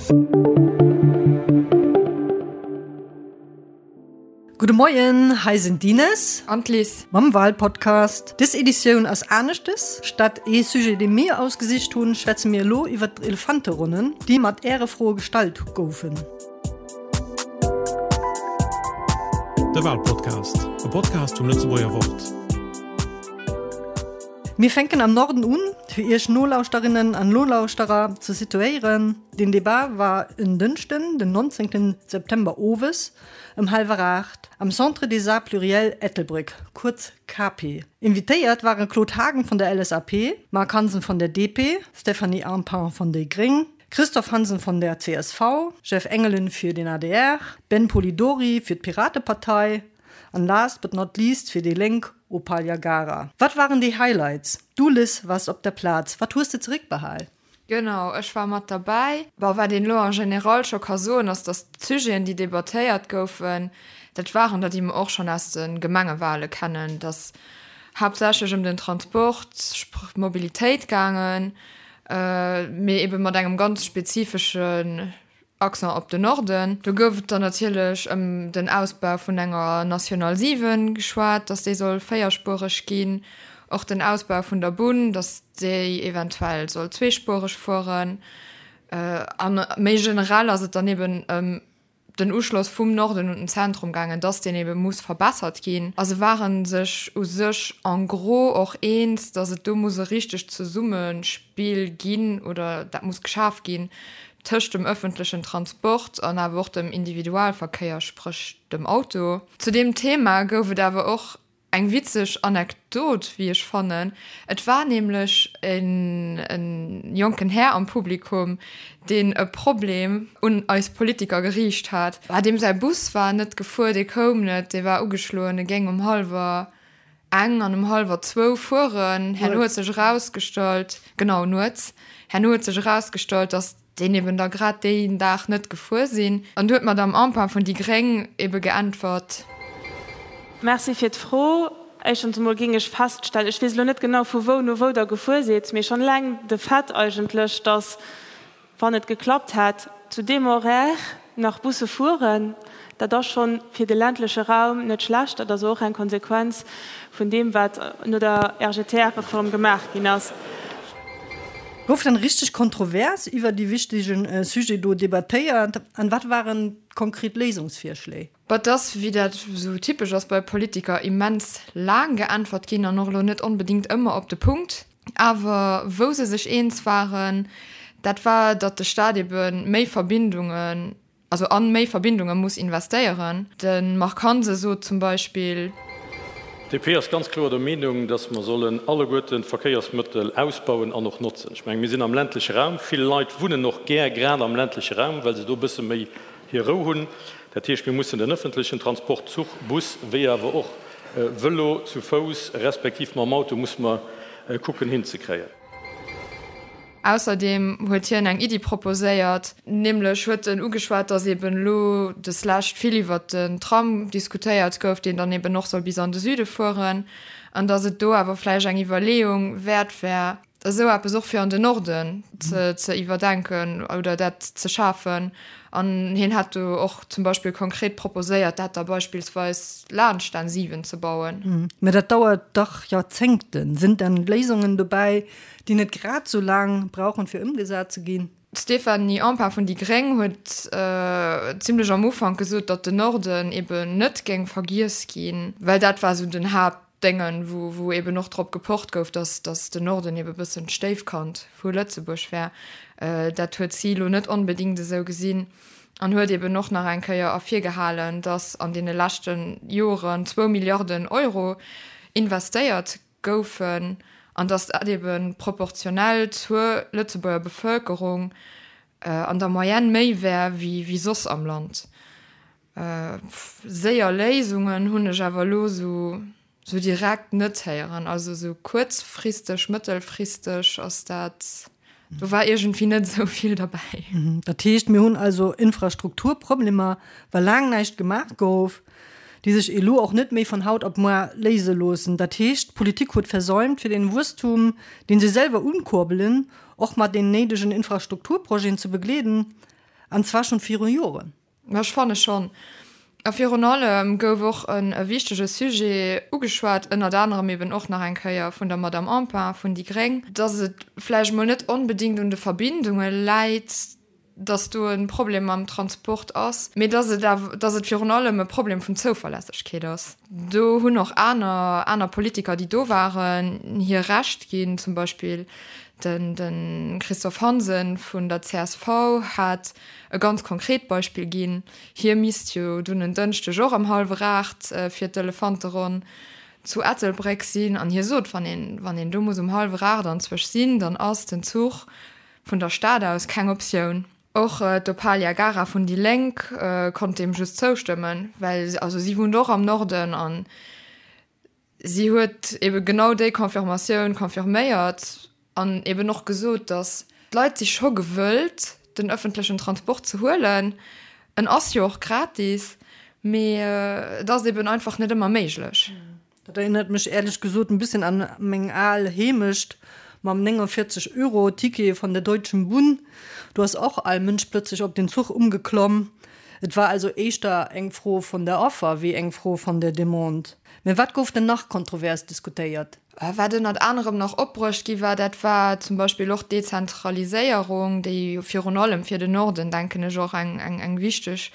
Gudde Moien, hei sinn d'Ines. An d'Liz. Mam Walpodcast. Dës Editioun ass aneschtes. Statt ee Sujet, dee mir ausgesicht hunn, schwätze mir elo iwwer d'Elefanteronnen, déi mat Äre Froe gestallt goufen. De Walpodcast, e Podcast vum Lëtzebuerger Wort. Mir fänken am Norden un, fir Iech Nolauschterinnen an Nolauschterer ze situéieren. Den Debat war en Dënschden, den 19 September owes ëm hallwer 8 am Centre des Arts Pluriels Ettelbréck, kuerz CAPE. Invitéiert ware Claude Haagen vun der LSAP, Marc Hansen vun der DP, Stéphanie Empain vun déi gréng, Christophe Hansen vun der csv, Jeff Engelen fir den adr, Ben Polidori fir d'Piratepartei an last but not least fir déi Lénk Opal Jagara. Wat waren déi Highlights? Du Liz waars op der Plaz, wat hues de zeréckbehal? Genau, ech war mat derbäi. Bon, wat een elo en général scho ka soen, ass, datt d'Sujeten, déi debattéiert goufen, dat waren der, déi mer och schonn aus de Gemengewale kennen. Et ass haaptsächlech ëm den Transport, spr. Mobilitéit gaangen, mee ebe mat engem ganz spezifeschen Accent op den Norden. Do gouf et dann natierlech ëm den Ausbau vun enger National 7 geschwat, datt déi soll véierspuereg ginn, och den Ausbau vun der Bunn, datt déi eventuell soll zweespuereg fueren. A méi generell ass et dann eben ëm den Uschloss vum Norden un den Zentrum gaangen, dass deen ebe muss verbessert ginn. A se ware sech u sech en gros och eens, dass et do muss e richtegt Zesummespill ginn oder dat muss geschaf ginn tëscht dem ëffentlechen Transport an awer och dem Individualverkéier, spréch dem Auto. Zu deem Thema gouf et awer och Eng witzeg Anekdot, wéi ech fannen. Et war nämlech en jonken Här am Publikum, deen e Problem un eis Politiker geriicht hat. Deem säi Bus war net gefuer, dee koum net, dee war ugeschloen, e géing um hallwer eng an um hallwer zwou fueren. Herno huet sech erausgestallt, genau, nuets, herno huet sech erausgestallt, datt deen eben da grad deen Dag net gefuer sinn. An du huet d'Madame Empain vun déi Gréng ebe geäntwert. Merci fir d'Fro. Éischtens emol géing ech feststellen, ech weess elo net genau vu wou no wou Der gefuer sidd, mee schonn eleng de Fait eigentlech, dass, wann et geklappt hätt, zu deem Horaire nach Busse fueren, dat ass schonn fir de ländleche Raum net schlecht. Dat ass och eng Konsequenz vun deem, wat no der RGTR-Reform gemaach ginn ass. Gouf dann richteg kontrovers iwwer déi wichtegen Sujet do debattéiert an wat waren konkret Léisungsvirschléi? Bah, et ass, wéi dat esou typesch ass bei Politiker, immens laang geäntwert ginn an och elo net onbedéngt ëmmer op de Punkt. Awer wou se sech eens waren, dat war, datt de Staat ebe méi Verbindungen, also an méi Verbindunge muss investéieren. De Marc Hansen sot zum Beispill. D'DP ass ganz kloer der Meenung, dass mer sollen alleguerten d'Verkéiersmëttel ausbauen an och notzen. Ech mengen, mir sinn am ländleche Raum. Vill Leit wunnen och gär grad am ländleche Raum, well se do e bësse méi hir Rou hunn. Dat heescht, mir mussen den ëffentlechen Transport, Zuch, Bus, wéi awer och Vëlo, zu Fouss respektiv mam Auto, musse mer kucken hinzekréien. Ausserdeem huet hien eng Iddi proposéiert, nämlech huet en ugeschwat, datt eben elo deslescht vill iwwert den Tram diskutéiert gouf, deen dann eben och soll bis an de Süde fueren, an datt et do awer vläicht eng Iwwerleeung wäert wär, esou eppes och fir an den Norden ze iwwerdenken oder dat ze schafen. An hien hätt do och zum Beispill konkret proposéiert, dat da beispillsweis laanscht d'N 7 ze bauen. Mä dat dauert dach Joerzéngten. Sinn dann Léisungen dobäi, déi net grad sou laang brauchen, fir ëmgesat ze ginn? D'Stéphanie Empain vun déi Gréng huet zimlech am Ufank gesot, datt den Norden eben net géing vergiess ginn, well dat war sou den Haaptdéngen, wou wou eben och drop gepocht gouf, datt datt den Norden eben e bëssen d'Stéifkand vu Lëtzebuerg wär. Dat huet si elo net onbedéngt esou gesinn an huet eben och nach eng Kéier ervirgehalen, datt an deene leschte Joren zwou Milliarden Euro investéiert goufen an datt dat ebe proportionell zur Lëtzebuerger Bevëlkerung an der Moyenne méi wär wéi soss am Land. Séier Léisungen hunn ech awer elo esou direkt net héieren. Also esou kuerzfristeg, mëttelfristeg ass dat, do war iergendwéi net esou vill derbäi. Dat heescht, mir hunn also Infrastrukturproblemer, well laang näischt gemaach gouf. déi sech elo och net méi von haut op moar léise loossen. Dat heescht, d'Politik huet versäumt, fir den Wuesstum, deen se selwer unkurbelen, och mat den néidegen Infrastrukturprojeten ze begleeden. An zwar schonn viru Joren. Ech fanne schonn. A virun allem gouf och e wichtege Sujet ugeschwat, ënnert anerem eben och nach eng Kéier vun der Madame Empain vun déi gréng, dass et vläicht emol net onbedéngt un de Verbindunge läit, dass do e Problem mam Transport ass, mee dass et awer, dass et virun allem e Problem vun Zouverlässegkeet ass. Do hunn och aner, aner Politiker, déi do waren, hir Recht ginn. Zum Beispill den, de Christophe Hansen vun der csv hat e ganz konkret Beispill ginn, Hie misst jo dunn en Dënschdeg och ëm hallwer 8 fir d'Elefanteronn zu Ettelbréck sinn. An hie sot, wann een, wann een do muss um hallwer 8 anzwësch sinn, dann ass den Zuch vun der Stad aus keng Optioun. Och d'Opalia Gara vun déi Lénk konnt deem just zoustëmmen, well also si wunnt och am Norden an Si huet ebe genau déi Confirmatioun confirméiert an eben och gesot, datt d'Leit si scho gewëllt, den ëffentlechen Transport ze huelen. En ass jo och gratis, mee et ass eben einfach net ëmmer méiglech. Dat erinnert mech ehrlech gesot en bisschen an meng al Heemecht mam 49 Euro Ticket von der Deutschen Bunn. Do ass och all Mënsch plötzlech op den Zuch umgeklomm. Et war also éischter eng Fro von der Offer wéi eng Fro von der Demande. Mä wat gouf denn nach kontrovers diskutéiert? Wat ënnert anerem nach opbruecht gi war, dat war zum Beispill och d'Dezentraliséierung, déi jo virun allem fir den Norden, denken ech, och eng wichteg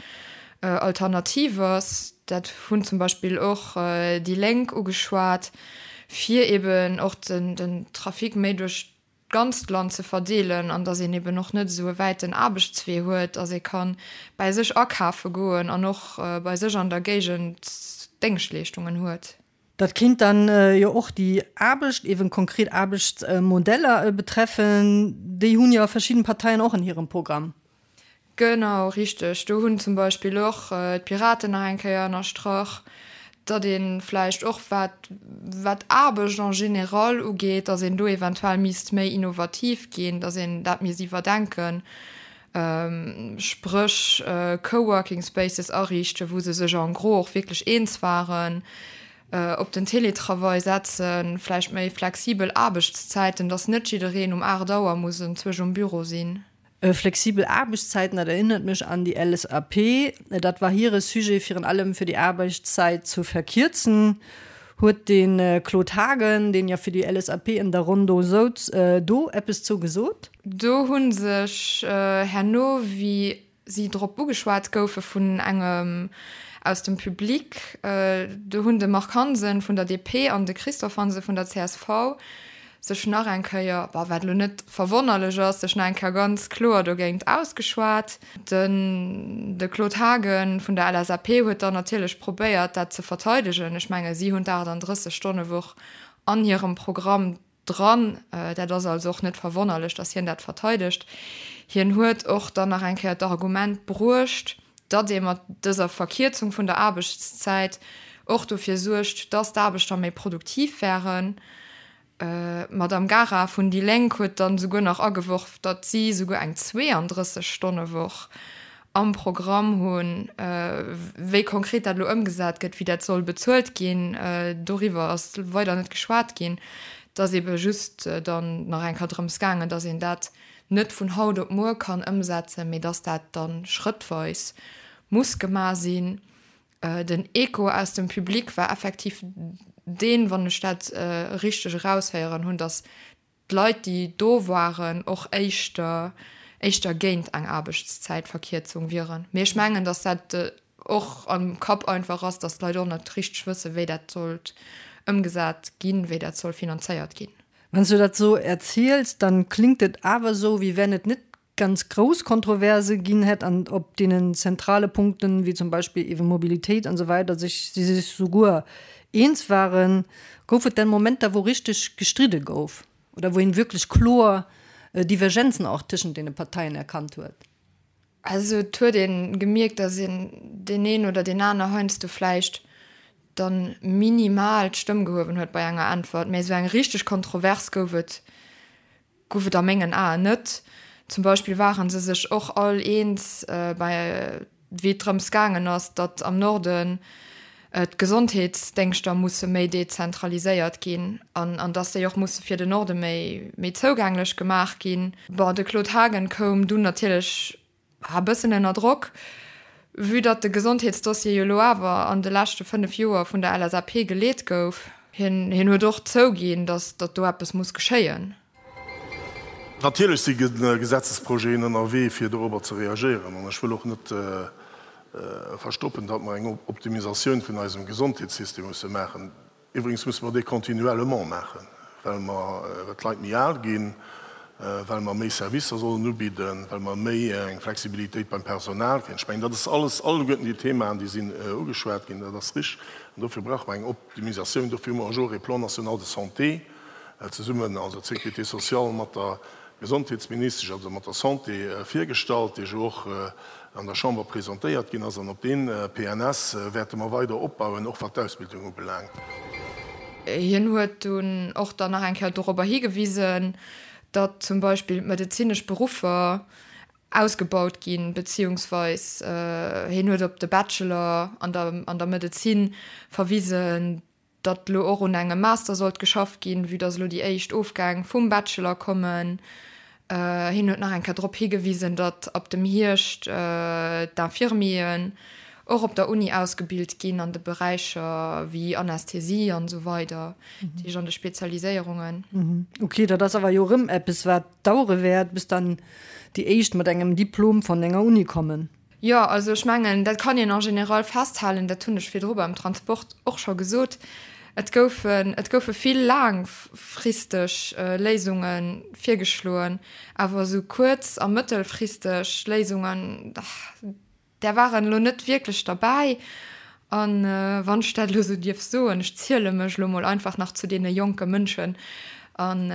Alternativ ass. Dat hunn zum Beispill och déi Lénk ugeschwat, fir eben och den Trafic méi duerch d'ganzt Land ze verdeelen an dass een eben och net esou e wäiten Aarbechtswee huet, dass ee ka bäi sech akafe goen an och bei sech an der Géigend Déngschtleeschtungen huet. Dat kéint dann jo och déi Aarbecht, eben konkret Aarbechtsmodeller betreffen. Déi hunn jo verschidden Parteien och an hirem Programm. Genau, richteg. Do hunn zum Beispill och d'Piraten nach eng Kéier ënnerstrach, datt ee vläicht och, wat wat Aarbecht en général ugeet, datt een do eventuell misst méi innovativ ginn, datt een dat misst iwwerdenken, spréch Coworking Spaces ariichten, wou se sech en gros och wierklech eens waren, op den Teletravail setzen, vläicht méi flexibel Aarbechtszäiten, datt net jiddereen um 8 Auer muss enzwousch um Büro sinn. Flexibel Aarbechtszäiten, dat erinnert mech an déi LSAP. Dat war hire Sujet, virun allem fir déi Aarbechtszäit zu verkierzen. Huet de Claude Haagen, deen jo fir déi LSAP an der Ronn do souz, do eppes zou gesot? Do hu sech herno, wéi si drop ugeschwat goufe vun engem aus dem Public, do hunn de Marc Hansen vun der DP an de Christophe Hansen vun der csv sech nach eng Kéier, bon, wat elo net verwonnerlech ass, sech nach eng Kéier ganz kloer dogéint ausgeschwat. Den de Claude Haagen vun der LSAP huet dann natierlech probéiert, dat ze verteidegen. Ech menge si hunn d'38 Stonne-Woch an hirem Programm dran. Dat ass also och net verwonnerlech, datt hien dat verteidegt. Hien huet och dann nach eng Kéier d'Argument bruecht, datt ee mat dëser Verkierzung vun der Aarbechtszäit och dofir suergt, datt d'Aarbechter méi produktiv wären. D'Madame Gara vun déi Lénk huet dann esouguer nach ageworf, datt si esouguer eng 32 Stonne-Woch am Programm hunn. Wéi konkret dat elo ëmgesat gëtt, wéi dat soll bezuelt ginn, doriwwer ass weider net geschwat ginn. Et ass ebe just dann nach eng Kéier drëms gaangen, datt een dat net vun haut op muer kann ëmsetzen, mee dass dat da schrëttweis muss gemaach sinn. Den Echo aus dem Public war effektiv deen, wann ech dat richteg eraushéieren hunn, dass d'Leit, déi do waren, och éischter éischter géint eng Aarbechtszäitverkierzung wieren. Mee ech mengen, dass dat och am Kapp einfach ass, dass d'Leit och net richteg wëssen, wéi dat sollt ëmgesat ginn, wéi dat soll finanzéiert ginn. Wann s du dat sou erziels, dann klingt et awer sou, wéi wenn et net ganz grouss Kontroverse ginn hätt an op deenen zentrale Punkten, wéi zum Beispill ewe Mobilitéit an sou weider, sech si sech souguer eens waren. Gouf et denn Momenter, wou richteg gestridde gouf oder wou een wierklech kloer Divergenzen och tëschent deene Parteien erkannt huet? Also et huet een gemierkt, dass een deen een oder deen aner heiansdo vläicht dann minimal d'Stëmm gehuewen huet bei enger Äntwert, mä esou eng richteg Kontrovers gouf et gouf et a mengen Aen net. Zum Beispill ware se sech och all eens bei wéi et drëms gaangen ass, datt am Norden d'Gesondheetsdéngschter musse méi dezentraliséiert ginn an an datt déi och musse fir den Norde méi méi zougänglech gemaach ginn. Bon, de Claude Haagen koum dunn natierlech. E bëssen ënner Drock, vue datt de Gesondheetsdossier jo elo awer an de leschte 5 Joer vun der LSAP geleet gouf. Hien huet och zouginn, datt datt do eppes muss geschéien. Natierlech si Gesetzesprojeten ënnerwee, fir dorobber ze reagéieren. An ech wëll och net verstoppen, datt mer eng Optimisatioun vun eisem Gesondheetssystem musse maachen. Iwwregens musse mer dee continuellement maachen, well mer, well d'Leit méi al ginn, well mer méi Servicer sollen ubidden, well mer méi eng Flexibilitéit beim Personal kréien. Ech mengen, dat ass alles, alleguerten déi Themaen, déi sinn ugeschwat ginn, dat ass richtig. An dofir brauche mer eng Optimisatioun. Dofir hu mer och e Plan national de santé zesummen, also d'Sécurité sociale mat der Gesondheetsministesch, also mat der Santé, virgestallt, dee jo och an der Chamber presentéiert ginn ass. An op dee PNS wäerte mer weider opbauen, och wat d'Ausbildung ubelaangt. Hien huet dunn och dann nach eng Kéier dorobber higewisen, datt zum Beispill d'medezinesch Beruffer ausgebaut ginn, beziehungsweis hien huet op de Bachelor an der an der Medezin verwisen, datt elo och un engem Master sollt geschafft ginn, vue datt elo déi éischt Ofgäng vum Bachelor kommen. Hien huet nach eng Kéier drop higewisen, datt ab dem Hierscht d'Infirmieren och op der Uni ausgebilt ginn an de Beräicher wéi Anästhesie an esou weider, dat heescht an de Spezialiséierungen. Ok, dat ass awer jo erëm eppes, wat dauere wäert, bis dann déi éischt mat engem Diplom von enger Uni kommen. Jo, also ech mengen, dat kann een en général festhalen, dat hunn ech virdru beim Transport och scho gesot, et goufen, et goufe vill laangfristeg Léisunge virgeschloen, awer esou kuerz a mëttelfristeg Léisungen, där waren elo net wierklech derbäi. A wann ech dat elo esou dierf soen, ech ziele mech elo mol einfach nach zu deene jonke Mënschen an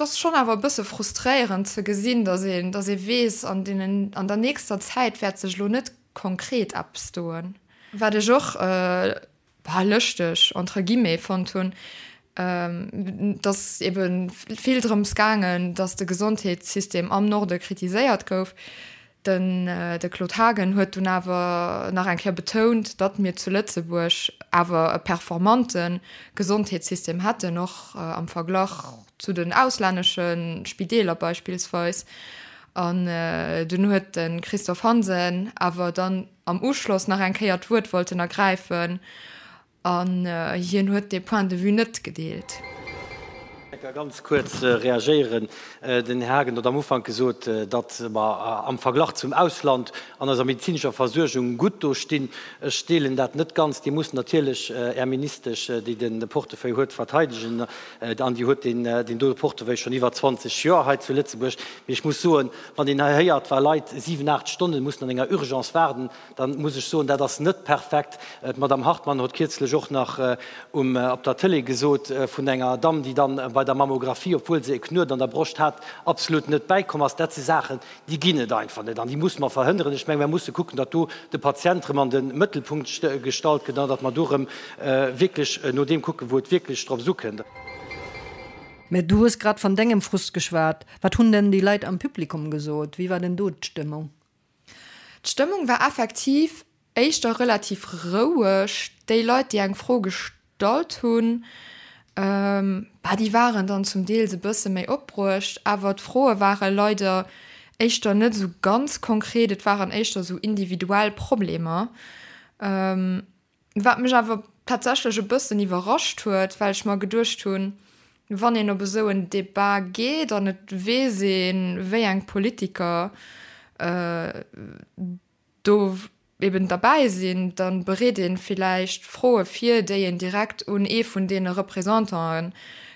Et ass schonn awer e bësse frustréierend ze gesinn, datt een, datt ee weess, an deenen, an der nächster Zäit wäert sech elo net konkret eppes doen. Wat ech och, bah, lëschteg, entre guillemets, fonnt hunn, et ass ebe vill drëms gaangen, datt de Gesondheetssystem am Norde kritiséiert gouf. Den de Claude Haagen huet dunn awer nach eng Kéier betount, datt mir zu Lëtzebuerg awer e performante Gesondheetssystem hätten, och am Verglach zu den auslännesche Spideeler beispillsweis. An dunn huet de Christophe Hansen awer dann am Uschloss nach eng Kéier d'Wuert wollten ergräifen An hien huet dee Point de vue net gedeelt. Ech ka ganz kuerz reagéieren. Den Här Haagen huet am Ufank gesot, datt mer am Verglach zum Ausland an eiser medezinescher Versuergung gutt do stinn. Ech deelen dat net ganz. Dir musst natierlech Är Ministesch, déi de Portefeuille huet, verteidegen. An déi huet deen dote Portefeuille schonn iwwer 20 Joer hei zu Lëtzebuerg. Mee ech muss soen, wann een hei héiert, wa Leit siwen, aacht Stonne mussen an enger Urgence waarden, Dann muss ech soen, dat ass net perfekt. D'Madame Hartmann hott kierzlech och nach um op der Tëlee gesot vun enger Damm, déi dann bei der Mammographie, obwuel se e Knuet an der Broscht hat, absolut net bäikomm ass. Dat si Saachen, déi ginn et einfach net an déi musse mer verhënneren. Ech mengen, mer musse kucken, datt do de Patient erëm an de Mëttelpunkt gestallt gëtt an datt mer do erëm wierklech no deem kucken, wou et wierklech drops ukënnt. Mä du hues grad van dengem Frust geschwat. Wat hunn denn déi Leit am Publikum gesot? Wéi war denn do d'Stëmmung? D'Stëmmung war effektiv éischter relativ roueg. Déi Leit, déi eng Fro gestallt hunn, bah, déi waren dann zum Deels e bësse méi opbruecht, awer d'Froe ware leider éischter net esou ganz konkret, et waren éischter esou individuell Problemer. Wat mech awer tatsächlech e bëssen iwwerrascht huet, well ech mer geduecht hunn, wann een op esou en Debat geet an et weess een, wéi eng Politiker do eben derbäi sinn, da bereet ee villäicht Froe vir, déi een direkt un ee vun deene Representanten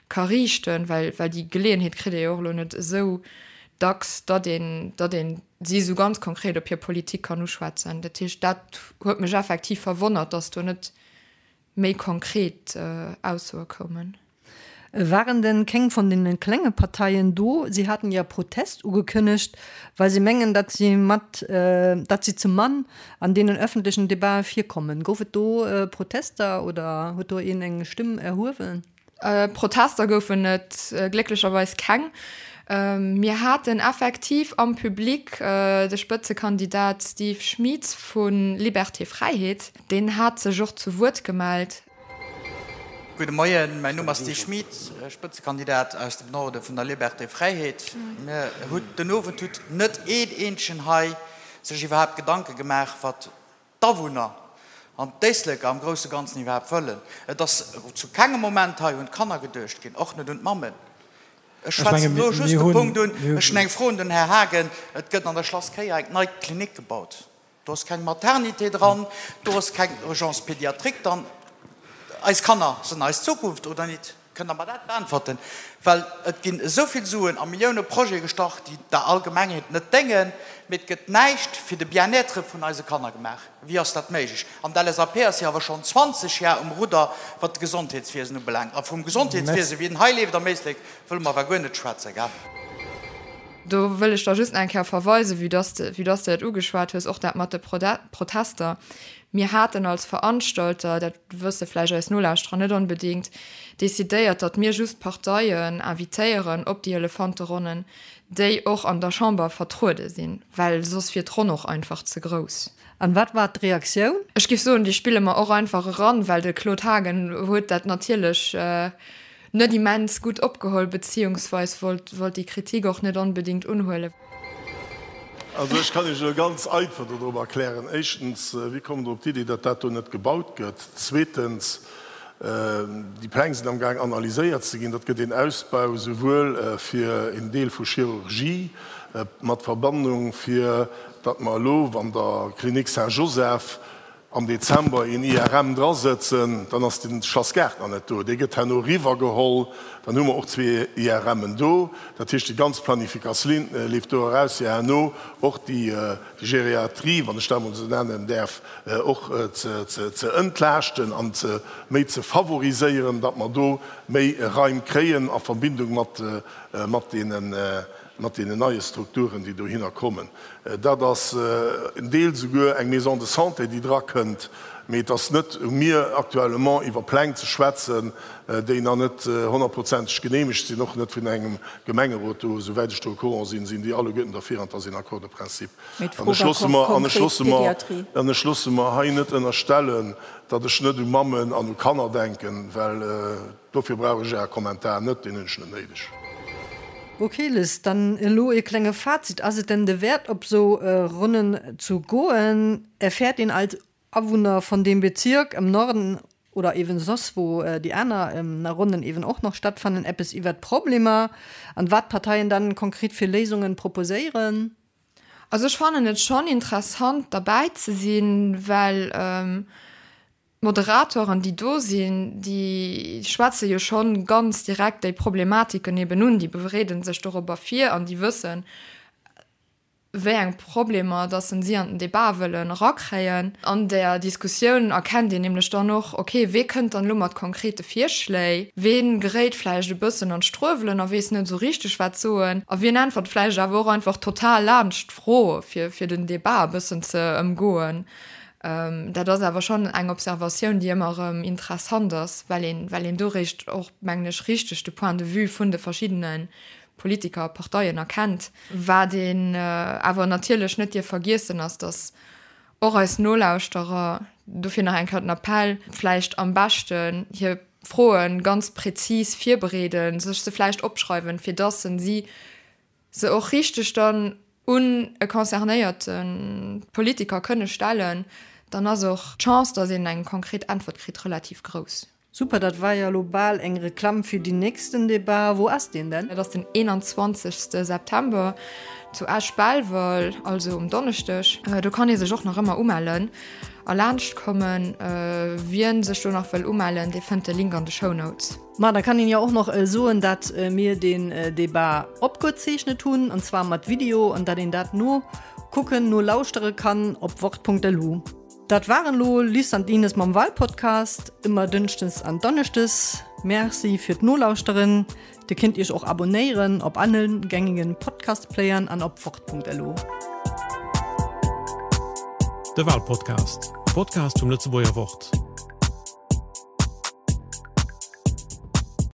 ka riichten, well déi Geleeënheet kritt ee jo och elo net esou dacks, datt een, datt een si esou ganz konkret op hir Politik kann uschwätzen. Dat heescht, dat huet mech effektiv verwonnert, datt do net méi konkret Aussoe koumen. Waren denn keng von den klenge Parteien do? Sie haten ja Protest ugekënnegt, well sie mengen, datt sie mat, datt sie ze mann an deenen öffentlechen Debaten virkommen. Gouf et do Protester oder huet do een eng Stimm erhuewen? Protester goufen et glécklecherweis keng. Mir haten effektiv am Public de Spëtzekandidat Steve Schmieds vu Liberté Fräiheet. Deen hat sech och zu Wuert gemellt. Gudde Moien, mäin Numm ass Steve Schmit, Spëtzekandidat aus dem Norde vun der Liberté Fräiheet. Mir hutt den Owend hutt net een eenzegen hei sech iwwerhaapt Gedanke gemaach, wat d'Awunner an d'Éisleker am grousse Ganzen iwwerhaapt wëllen. Et ass zu kengem Moment hei un d'Kanner geduecht ginn, och net un d'Mammen. Ech schwätzen elo just de Punkt un. Ech hunn eng Fro un den Här Haagen. Et gëtt an der Schlass Kéier eng nei Klinik gebaut. Do ass keng Maternité dran, do ass keng Urgence pédiatrique dran. Eis Kanner sinn eis Zukunft, oder nit? Kënnt Der mer dat beäntwerten? Well et ginn esou vill Suen a Millioune Projete gestart, déi der Allgemengheet net déngen, mee et gëtt näischt fir de Bien-être vun eise Kanner gemaach. Wéi ass dat méiglech? An d'LSAP ass jo awer schonn 20 Jar um Rudder, wat d'Gesondheetswiesen ubelaangt. A vum Gesondheetswiesen, wéi en hei leeft am Éislek, wëlle mer awer guer net schwätzen, gell? Do wëll ech da just nach eng Kéier verweisen, vue dass de, vue dass de dat ugeschwat hues, och dat mat de Protester. Mir haten als Veranstalter, dat wësse vläicht eis Nolauschterer net onbedéngt, decidéiert, datt mir just Parteien invitéieren op déi Elefanteronnen, déi och an der Chamber vertruede sinn, well soss wier d'Ronn och einfach ze grouss. An wat war d'Reaktioun? Ech géif soen, déi spille mer och einfach eran, well de Claude Haagen huet dat natierlech net immens gutt opgeholl, beziehungsweis wollt wollt déi Kritik och net onbedéngt unhuelen. Also ech kann Iech elo ganz einfach dodrop erklären. Éischtens, wie kommt Der op d'Iddi, datt dat do net gebaut gëtt? Zweetens, déi Pläng sinn amgaang analyséiert ze ginn. Dat gëtt een Ausbau souwuel fir een Deel vu Chirurgie mat Verbannung, fir datt mer elo, wann der Clinique Saint-Joseph am Dezember een IRM drasëtzen, dann ass de Schlass Gaart nach net do, dee gëtt herno eriwwergeholl, dann hu mer och zwee IRMen do. Dat heescht, déi ganz Planifikatioun leeft do eraus, fir herno och déi Geriatrie, wann ech dat emol esou nennen däerf, och ze entlaaschten an ze méi ze favoriséieren, datt mer do méi Raim kréien a Verbindung mat deenen mat deenen neie Strukturen, déi dohinner kommen. Dat ass en Deel souguer eng Maison de santé, déi drakënnt. Mee et ass net u mir actuellement iwwer Pläng ze schwätzen, déi nach net honnertprozenteg genehmegt sinn, och net vun engem Gemengerot do. Esouwäit ech do au courant sinn, sinn déi alleguerten derfir an et ass een Accord de principe. Mee d'Fro war konkret d'Pédiatrie. An ech loosse mer hei net ënnerstellen, datt ech net u Mammen an u Kanner denken, well Dofir brauch ech Äre Kommentar net, deen hunn ech net néideg. Ok Liz, dann elo ee klenge Fazit, Ass et denn de Wäert op sou Ronnen zu goen? Erfährt een als Awunner von dem Bezirk im Norden oder eben soss wou déi aner Ronnen eben och nach stattfannen eppes iwwert d'Problemer an wat d'Parteien dann konkret fir Léisungen proposéieren? Also ech fannen et schon interessant derbäi ze sinn, well D'Moderatoren, déi do sinn, déi schwätze jo schonn ganz direkt déi Problematiken eben un, déi bereede sech dorobber vir an déi wëssen, wéi eng Problemer dass se si an den Debat wëllen erakréien. An där Diskussioun erkennt een nämlech dann och, okay, wee kënnt dann elo mat konkrete Virschléi, wee geréit vläicht e bëssen an d'Struewelen a weess net esou richteg wat soen a wien äntwert vläicht awer och einfach total laanscht d'Fro, fir fir den Debat e bëssen ze ëmgoen. Dat ass awer schonn eng Observatioun, déi ëmmer erëm interessant ass, well een, well een do réischt och, mengen ech, richteg de Point de vue vun de verschiddene Politiker a Parteien erkennt. Wat een awer natierlech net dierf vergiessen, ass, datt och eis Nolauschterer, dofir nach eng Kéier den Appell, vläicht am beschten hir Froe ganz prezis virbereeden, sech se vläicht opschreiwen, fir datt se si se och richteg dann un e concernéierte Politiker kënne stellen, dann ass och d'Chance, datt een eng konkret Äntwert kritt, relativ grouss. Super, dat war jo elo bal eng Reklamm fir deen nächsten Debat. Wou ass deen denn? Dat ass den 21. September zu Esch-Belval, also um Donneschdeg. Do kann ee sech och nach ëmmer umellen a laanscht kommen. Wien sech do nach wëll umellen, dee fënnt de Link an de Shownotes. Ma da kann een jo och noch soen, dat mir deen Debat opgezeechnet hunn, an zwar mat Video, an dat een dat nokucken, nolauschtere kann op wort.lu. Dat waren lo Liz an d'Ines mam Walpodcast, ëmmer dënschdes an donneschdes. Merci fir d'Nolauschteren. Dir kinnt iech och abonéieren op allen gängigen Podcastplayern an op wort.lu. De Walpodcast, e Podcast vum Lëtzebuerger Wort.